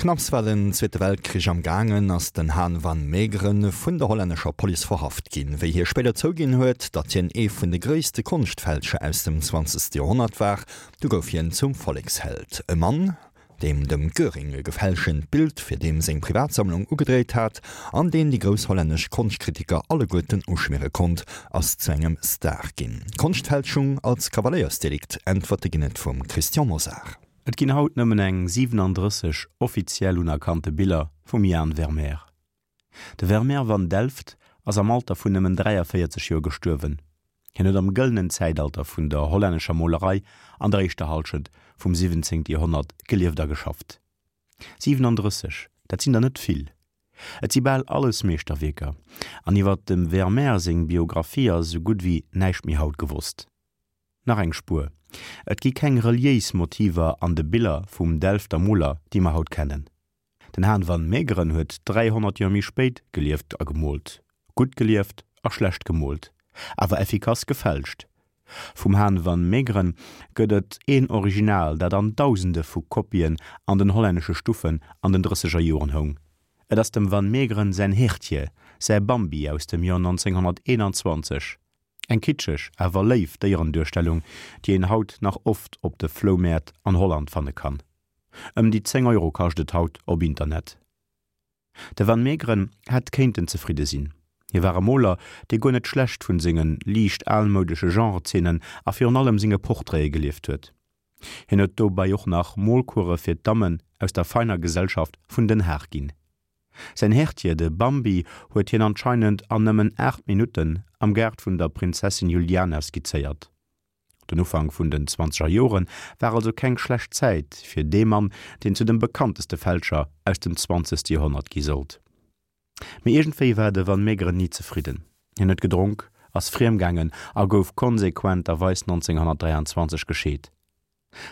Knapps war den Zweete Weltkrich am gaangen, ass den Han van Meegeren vun der hollännescher Police verhaft ginn. Wéi hie spéider zouginn huet, datt hien ee vun de gréisste Konschtfälscher aus dem zwanzegste Joerhonnert war, du gouf hien zum Volleksheld. E Mann, deem dem Göring e gefälschent Bild fir deem seng Privatsammlung ugedréit hat an deen déi grouss hollännesch Konschtkritiker alleguerten uschmiere konnt, ass zu engem Star ginn. Konschtfälschung als Kavaléiersdelikt? Äntwerte ginn et vum Christian Mosar. Et ginn haut nëmmen eng 37 offiziell unerkannte Biller vum Jan Vermeer. De Vermeer van Delft ass am Alter vun nëmmen 43 Joer gestuerwen. Hien huet am gëllenen Zäitalter vun der hollännescher Molerei an der éischter Hallschent vum 17. Joerhonnert gelieft a geschafft. 37, dat sinn der net vill. Et si bal alles Meeschterwierker, an iwwer dem Vermeer seng Biographie ass esou gutt ewéi näischt méi haut gewosst. Nach eng Spuer, Et gi keng reliéis Motiver an de Biller vum Delfter Moler, déi mer haut kennen. Den Han van Meegeren huet 300 Joer méi spéit gelieft a gemoolt. Gutt gelieft a schlecht gemoolt, awer effikass gefälscht. Vum Han van Meegeren gëtt et een Original, dat an Dausende vu Kopien an den hollännesche Stuffen an den drësseger Joren houng. Et ass dem Van Meegeren säin Hertje, säi Bambi aus dem Joer 1921. Eng kitscheg, awer léif Déierenduerstellung, déi een haut nach oft op de Floumäert an Holland fanne kann. Ëm déi 10 Euro kascht et haut op Internet. De Van Meegeren hätt kéinten zefridde sinn. Hie war e Moler, dee guer net schlecht vun senge liicht almoudesche Genrezeenen a virun allem senge Portraite gelieft huet. Hien huet dobäi och nach Molcourse fir d'Dammen aus der feiner Gesellschaft vun Den Haag ginn. Säin Hertier, de Bambi, huet hien anscheinend an nëmmen 8 Minutten am Gaart vun der Prinzessin Juliana skizzéiert. Den Ufank vun den zwanzeger Jore war also keng schlecht Zäit fir dee Mann, deen zu dem bekannteste Fälscher aus dem zwanzegste Joerhonnert gi sollt. Mee iergendwéi war de Van Meegeren ni zefridden. Hien huet gedronk, ass friemgaangen a gouf konsequenterweis 1923 gescheet.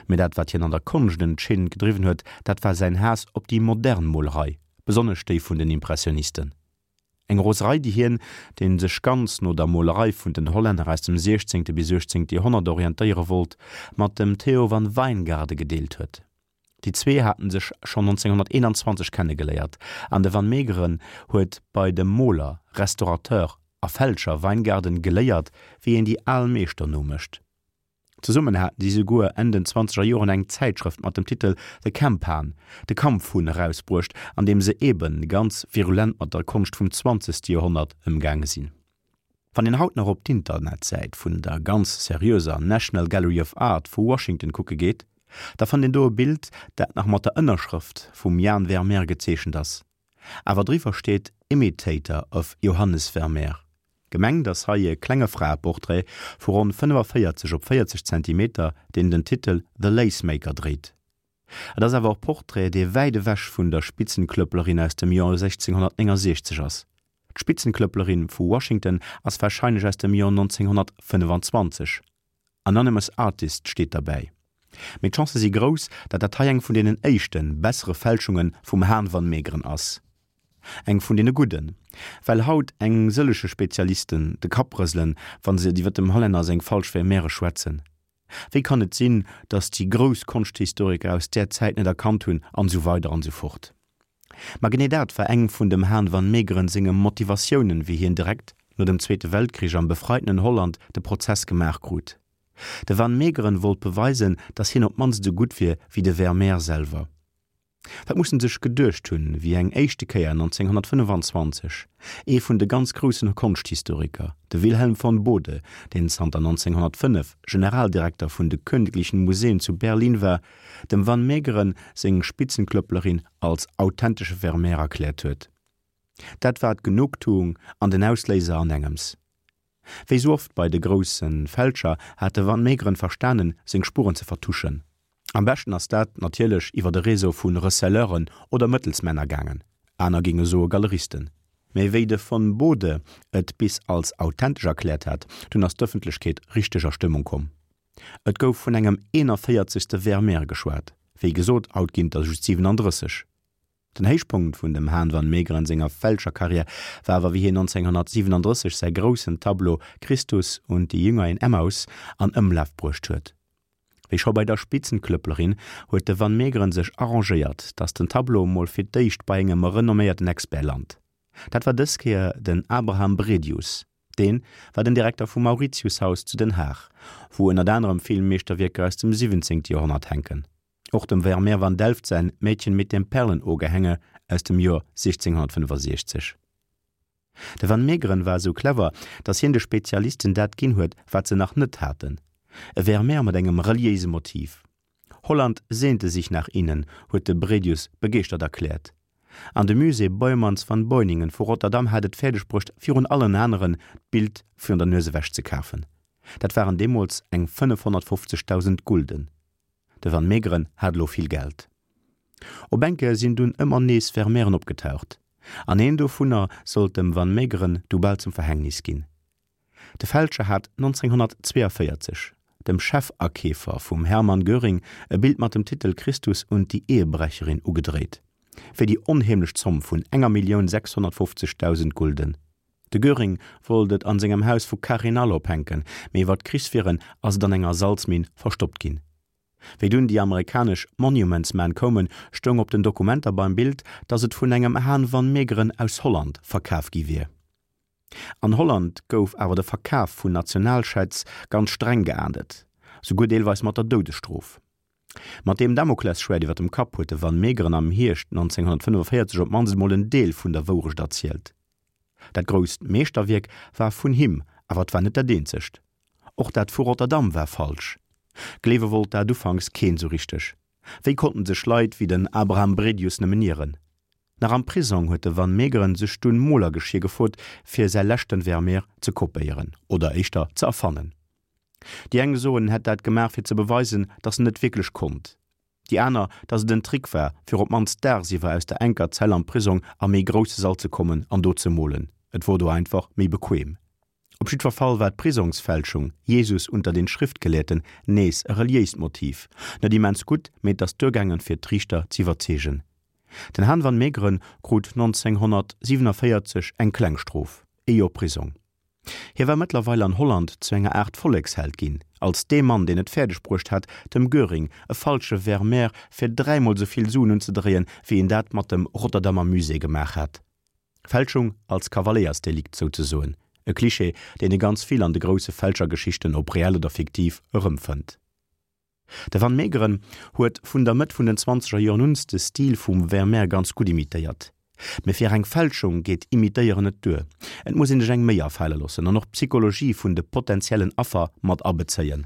Mee dat wat hien an der Konscht entscheedend gedriwwen huet, dat war säin Haass op déi modern Molerei, besonnesch déi vun den Impressionisten. Eng Roserei déi hien, deen sech ganz no der Molerei vun den Hollänner aus dem 16. bis 18. Joerhonnert orientéiere wollt, mat dem Theo van Wijngaarden gedeelt huet. Déi zwee haten sech schonn 1921 kennegeléiert an de Van Meegeren huet bei dem Moler, Restaurateur a Fälscher Wijngaarden geléiert, wéi een déi al Meeschter nomécht. Zesummen haten si souguer Enn den zwanzeger Joren eng Zäitschrëft mat dem Titel The Kemphaan, De Kampfhunn, erausbruecht, an deem se eebe ganz virulent mat der Konscht vum zwanzegste Joerhonnert ëmgaange sinn. Wann een haut nach op d'Internetsäit vun der ganz seriöser National Gallery of Art vu Washington kucke geet, da fënnt een do e Bild, dat nach mat der Ënnerschrëft vum Jan Vermeer gezeechent ass. Awer driwwer steet Imitator of Johannes Vermeer. Gemengt ass hei e klenge Fraeportrait vu ronn 45 op 40 Zentimeter, deen den Titel The Lacemaker dréit. Et ass awer e Portrait, dee wäit ewech vun der Spitzenklöpplerin aus dem Joer 1669 ass. D'Spitzenklöpplerin vu Washington ass warscheinlech aus dem Joer 1925. Anonymous Artist steet derbäi. Mee d'Chancë si grouss, datt dat hei eng vun deenen éischten, bessere Fälschunge vum Haan van Meegeren ass. Eng vun deene gudden. Well haut eng sëllege Spezialisten de Kapp rëselen, wa se iwwer dem Hollänner seng falsch Vermeere schwätzen. Wéi kann et sinn, datt déi grouss Konschthistoriker aus där Zäit net erkannt hunn, an esou weider an esou fort. Ma genee dat war eng vun dem Haan van Meegeren senge Motivatiounen, wéi hien direkt no dem Zweete Weltkrich am befreitenen Holland de Prozess gemaach krut. De van Meegeren wollt beweisen, datt hien op d'mannst esou gutt wier wéi de Vermeer selwer. Wat muss en sech geduecht hunn, wéi eng éischte Kéier 1925 ee vun de ganz groussen Konschthistoriker, de Wilhelm von Bode, deen zanter 1905 Generaldirekter vun de Königlichen Museen zu Berlin war, dem Van Meegeren seng Spitzenklöpplerin als authentesche Vermeer erkläert huet. Dat war d'Genugtuung an den Ausléiser an engems. Wéi sou oft bei de grousse Fälscher hat de Van Meegeren verstanen, seng Spuren ze vertuschen. Am beschten ass dat natierlech iwwer e Réseau vu Receleuren oder Mëttelsmänner gaangen, aner géinge soe Galeristen. Mee wéi de von Bode et bis als authentesch erkläert hat, dunn ass d'Ëffentlechkeet richteg a Stëmmung komm. Et gouf vun engem 41. Vermeer geschwat, wéi gesot, haut ginn et der just 37. Den Héichpunkt vun dem Haan van Meegeren senger Fälscherkarriär war awer wéi hien 1937 säi groussen Tableau Christus und die Jünger in Emmaus an Ëmlaf bruecht huet. Wéi scho bei der Spitzenklöpplerin huet de Van Meegeren sech arrangéiert, datt den Tableau mol fir d'éischt bei engem renomméierten Expert lant. Dat war dës Kéier den Abraham Bredius. Deen war den Direkter vum Mauritiushaus zu Den Haag, wou ënnert anerem vill Meeschterwierker aus dem 17. Joerhonnert hänken. Och dem Vermeer van Delft säin Mädchen mit dem Perlenohrgehänge aus dem Joer 1665. De Van Meegeren war esou clever, datt hien de Spezialisten dat ginn huet, wat se nach net haten, e Vermeer mat engem reliéise Motiv. Holland sehnte sich nach ihnen, huet de Bredius begeeschtert erkläert. An de Musée Boijmans van Beuningen vu Rotterdam hat et fäerdeg bruecht, virun allen aneren d'Bild virun der Nues ewech ze kafen. Dat waren deemools eng 550.000 Gulden. De Van Meegeren hat elo vill Geld. Op eng Kéier sinn dunn ëmmer nees Vermeeren opgetaucht, an een dovunner sollt dem Van Meegeren du bal zum Verhängnis ginn. De Fälscher hat 1942 dem Chefakeefer vum Hermann Göring e Bild mat dem Titel Christus und die Ehebrecherin ugedréit, fir déi onheemlech Zomm vun enger Millioun 650.000 Gulden. De Göring wollt et an sengem Haus vu Carinhall ophänken, mee iwwer d'Krichswieren ass et an enger Salzminn verstoppt ginn. Wéi dunn déi amerikanesch Monuments Men koumen, stoung op den Dokumenter beim Bild, datt et vun engem Haan van Meegeren aus Holland verkaf gi wier. An Holland gouf awer de Verkaf vun Nationalschätz ganz streng geahndet, souguer deelweis mat der Doudesstrof. Mat deem Damoklesschwäert iwwer dem Kapp huet de Van Meegeren am Hierscht 1945 op d'mannst emol en Deel vun der Wourecht erzielt. Dat grousst Meeschterwierk war vun him, awer et war net dat eenzegt. Och dat vu Rotterdam war falsch. Gleewe wollt dat ufanks keen sou richteg. Wéi konnten sech Leit wéi den Abraham Bredius nëmmen ieren? Nach am Prisong huet de Van Meegeren sech dunn Molergeschier gefrot, fir säi leschten Vermeer ze kopéieren, oder éischter ze erfannen. Déi eng soen, en hätt dat gemaach fir ze beweisen, datt en et wierklech konnt. Déi aner, datt et en Trick war, fir op d'mannst daagsiwwer aus der enker Zell am Prisong a méi grousse Sall ze kommen an do ze molen. Et wor do einfach méi bequem. Op jiddwer Fall war d'Prisongsfälschung Jesus unter den Schriftgelehrten nees e reliéist Motiv. Net immens gutt, mee et ass duergaangen, fir d'Riichter z'iwwerzeegen. Den Han van Meegeren krut 1947 eng kleng Strof, ee Joer Prisong. Hie war mëttlerweil an Holland zu enger Aart Volleksheld ginn, als dee Mann, deen et fäerdeg bruecht hat, dem Göring e falsche Vermeer fir dräimol sou vill Suen unzedréien, wéi en dat mat dem Rotterdamer Musée gemaach hat. Fälschung als Kavaléiersdelikt souzesoen, e Klischee, deen ee ganz vill an de grousse Fälschergeschichten, ob reell oder fiktiv, erëmfënnt. De Van Meegeren huet vun der Mëtt vun den zwanzeger Joren un de Stil vum Vermeer ganz gutt imitéiert. Mee fir eng Fälschung geet Imitéieren net duer, et muss een sech eng Méi afale loossen an och d'Psychologie vun de potentiellen Affer mat abezéien.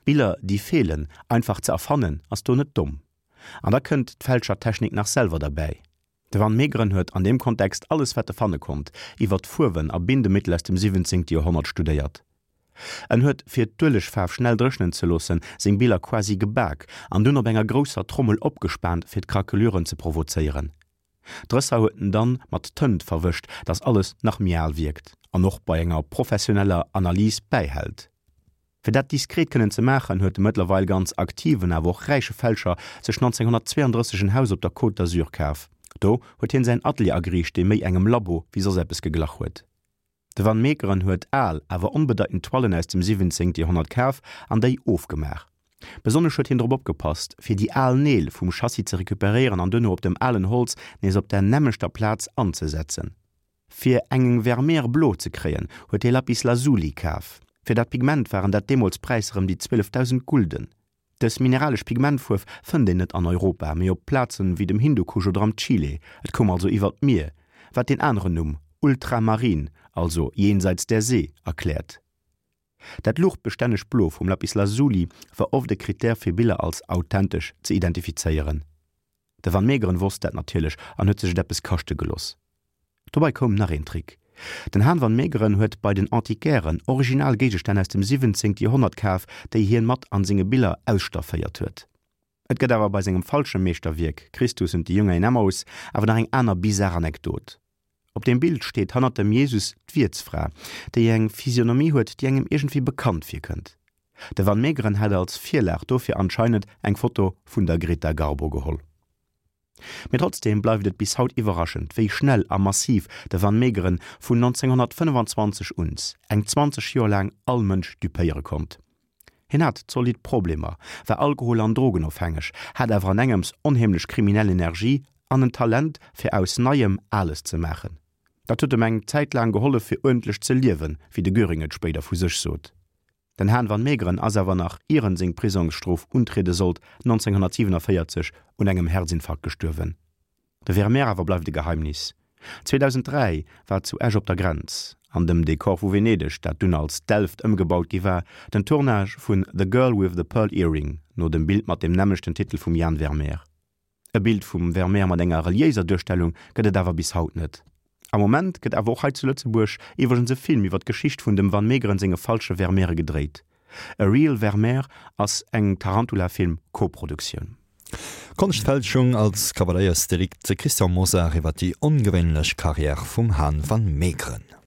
Biller déi feelen einfach ze erfannen ass do net domm. An da kënnt d'Fälschertechnik nach selwer derbäi. De Van Meegeren huet an deem Kontext alles wat e fanne konnt iwwer d'Fuerwen a Bindemittel aus dem 17. Joerhonnert studéiert. En huet, fir d'Uelegfaarf schnell dréchnen ze loossen, seng Biller quasi gebak an dunn op enger grousser Trommel opgespaant fir d'Craqueluren ze provozéieren. D'Rësser huet en dann mat Tënt verwëscht, dass alles nach méi al wierkt an och bei enger professioneller Analys bäihält. Fir dat diskret kënnen ze maachen, huet de mëttlerweil ganz aktiven, awer och räiche Fälscher sech 1932 en Haus op der Côte d'Azur kaf. Do huet hien säin Atelier ageriicht, dee méi engem Labo wéi soss eppes geglach huet. De Van Meegeren huet al, awer onbedeitend Toilen aus dem 17. Joerhonnert kaf an déi ofgemaach. Besonnesch huet hien drop opgepasst, fir déi al Neel vum Chassis ze recuperéieren an duerno op dem alen Holz nees op der nämmlechter Plaz anzesetzen. Fir eng Vermeer blo ze kréien, huet hie Lapis Lazuli kaf. Fir dat Pigment waren dat deemools Präisser ëm déi 12.000 Gulden. Dës mineralesch Pigmentfuerf fënnt een net an Europa, mee op Plazen wéi dem Hindukusch oder am Chile. Et koum also iwwer d'Mier, wat deen aneren Numm, Ultramarin, also jenseits der See, erkläert. Dat luuchtbestännegt Blo vum Lapis Lazuli war oft e Krittär fir Biller als authentesch ze identifizéieren. De Van Meegeren wosst dat natierlech an huet sech et eppes kaschte geloss. Dobei koum nach een Trick, Den Han van Meegeren huet bei den Antiquairen original Géigestänn aus dem 17. Joerhonnert kaf, déi hien mat an senge Biller ausstafféiert huet. Et gëtt awer bei sengem falsche Meeschterwierk Christus und die Jünger in Emmaus awer nach eng aner bizar Anekdot. Op deem Bild steet hannert dem Jesus d'Wiertsfra, déi eng Physionomie huet, déi engem iergendwéi bekannt virkënnt. De Van Meegeren hat als Virlag dofir anscheinend eng Foto vun der Greta Garbo geholl. Mee trotzdeem bleift et bis haut iwwerraschend, wéi schnell a massiv de Van Meegeren vun 1925 uns, eng 20 Joer laang, all Mënsch dupéiere konnt. Hien hat zolidd Problemer, war alkohol an drogenofhängeg, hat awer an engems onheemlech kriminell Energie an en Talent fir aus Neiem Ales ze maachen. Dat huet em eng Zäit laang gehollef fir uerdentlech ze liewen, wéi de Göring et spéider vu sech sot. Den Han van Meegeren ass awer nach ier en seng Prisongsstrof untriede sollt, 1947 un engem Herzinfarkt gestuerwen. De Vermeer awer bleift e Geheimnis. 2003 war zu Esch op der Grenz, an dem Dekor vu Venedeg, dat dunn als Delft ëmgebaut gi war, den Tournage vun The Girl with the Pearl Earring no dem Bild mat dem nämmlechten Titel vum Jan Vermeer. E Bild vum Vermeer mat enger reliéiser Duerstellung gëtt et awer bis haut net. Am Moment gëtt awer och hei zu Lëtzebuerg iwwregens e Film iwwer d'Geschicht vun dem Van Meegeren senge falsche Vermeere gedréit. A Real Vermeer ass eng Tarantula Film Koproduktioun. Konschtfälschung als Kavaléiersdelikt, De Christian Mosar iwwer déi ongewéinlech Karriär vum Han van Meegeren.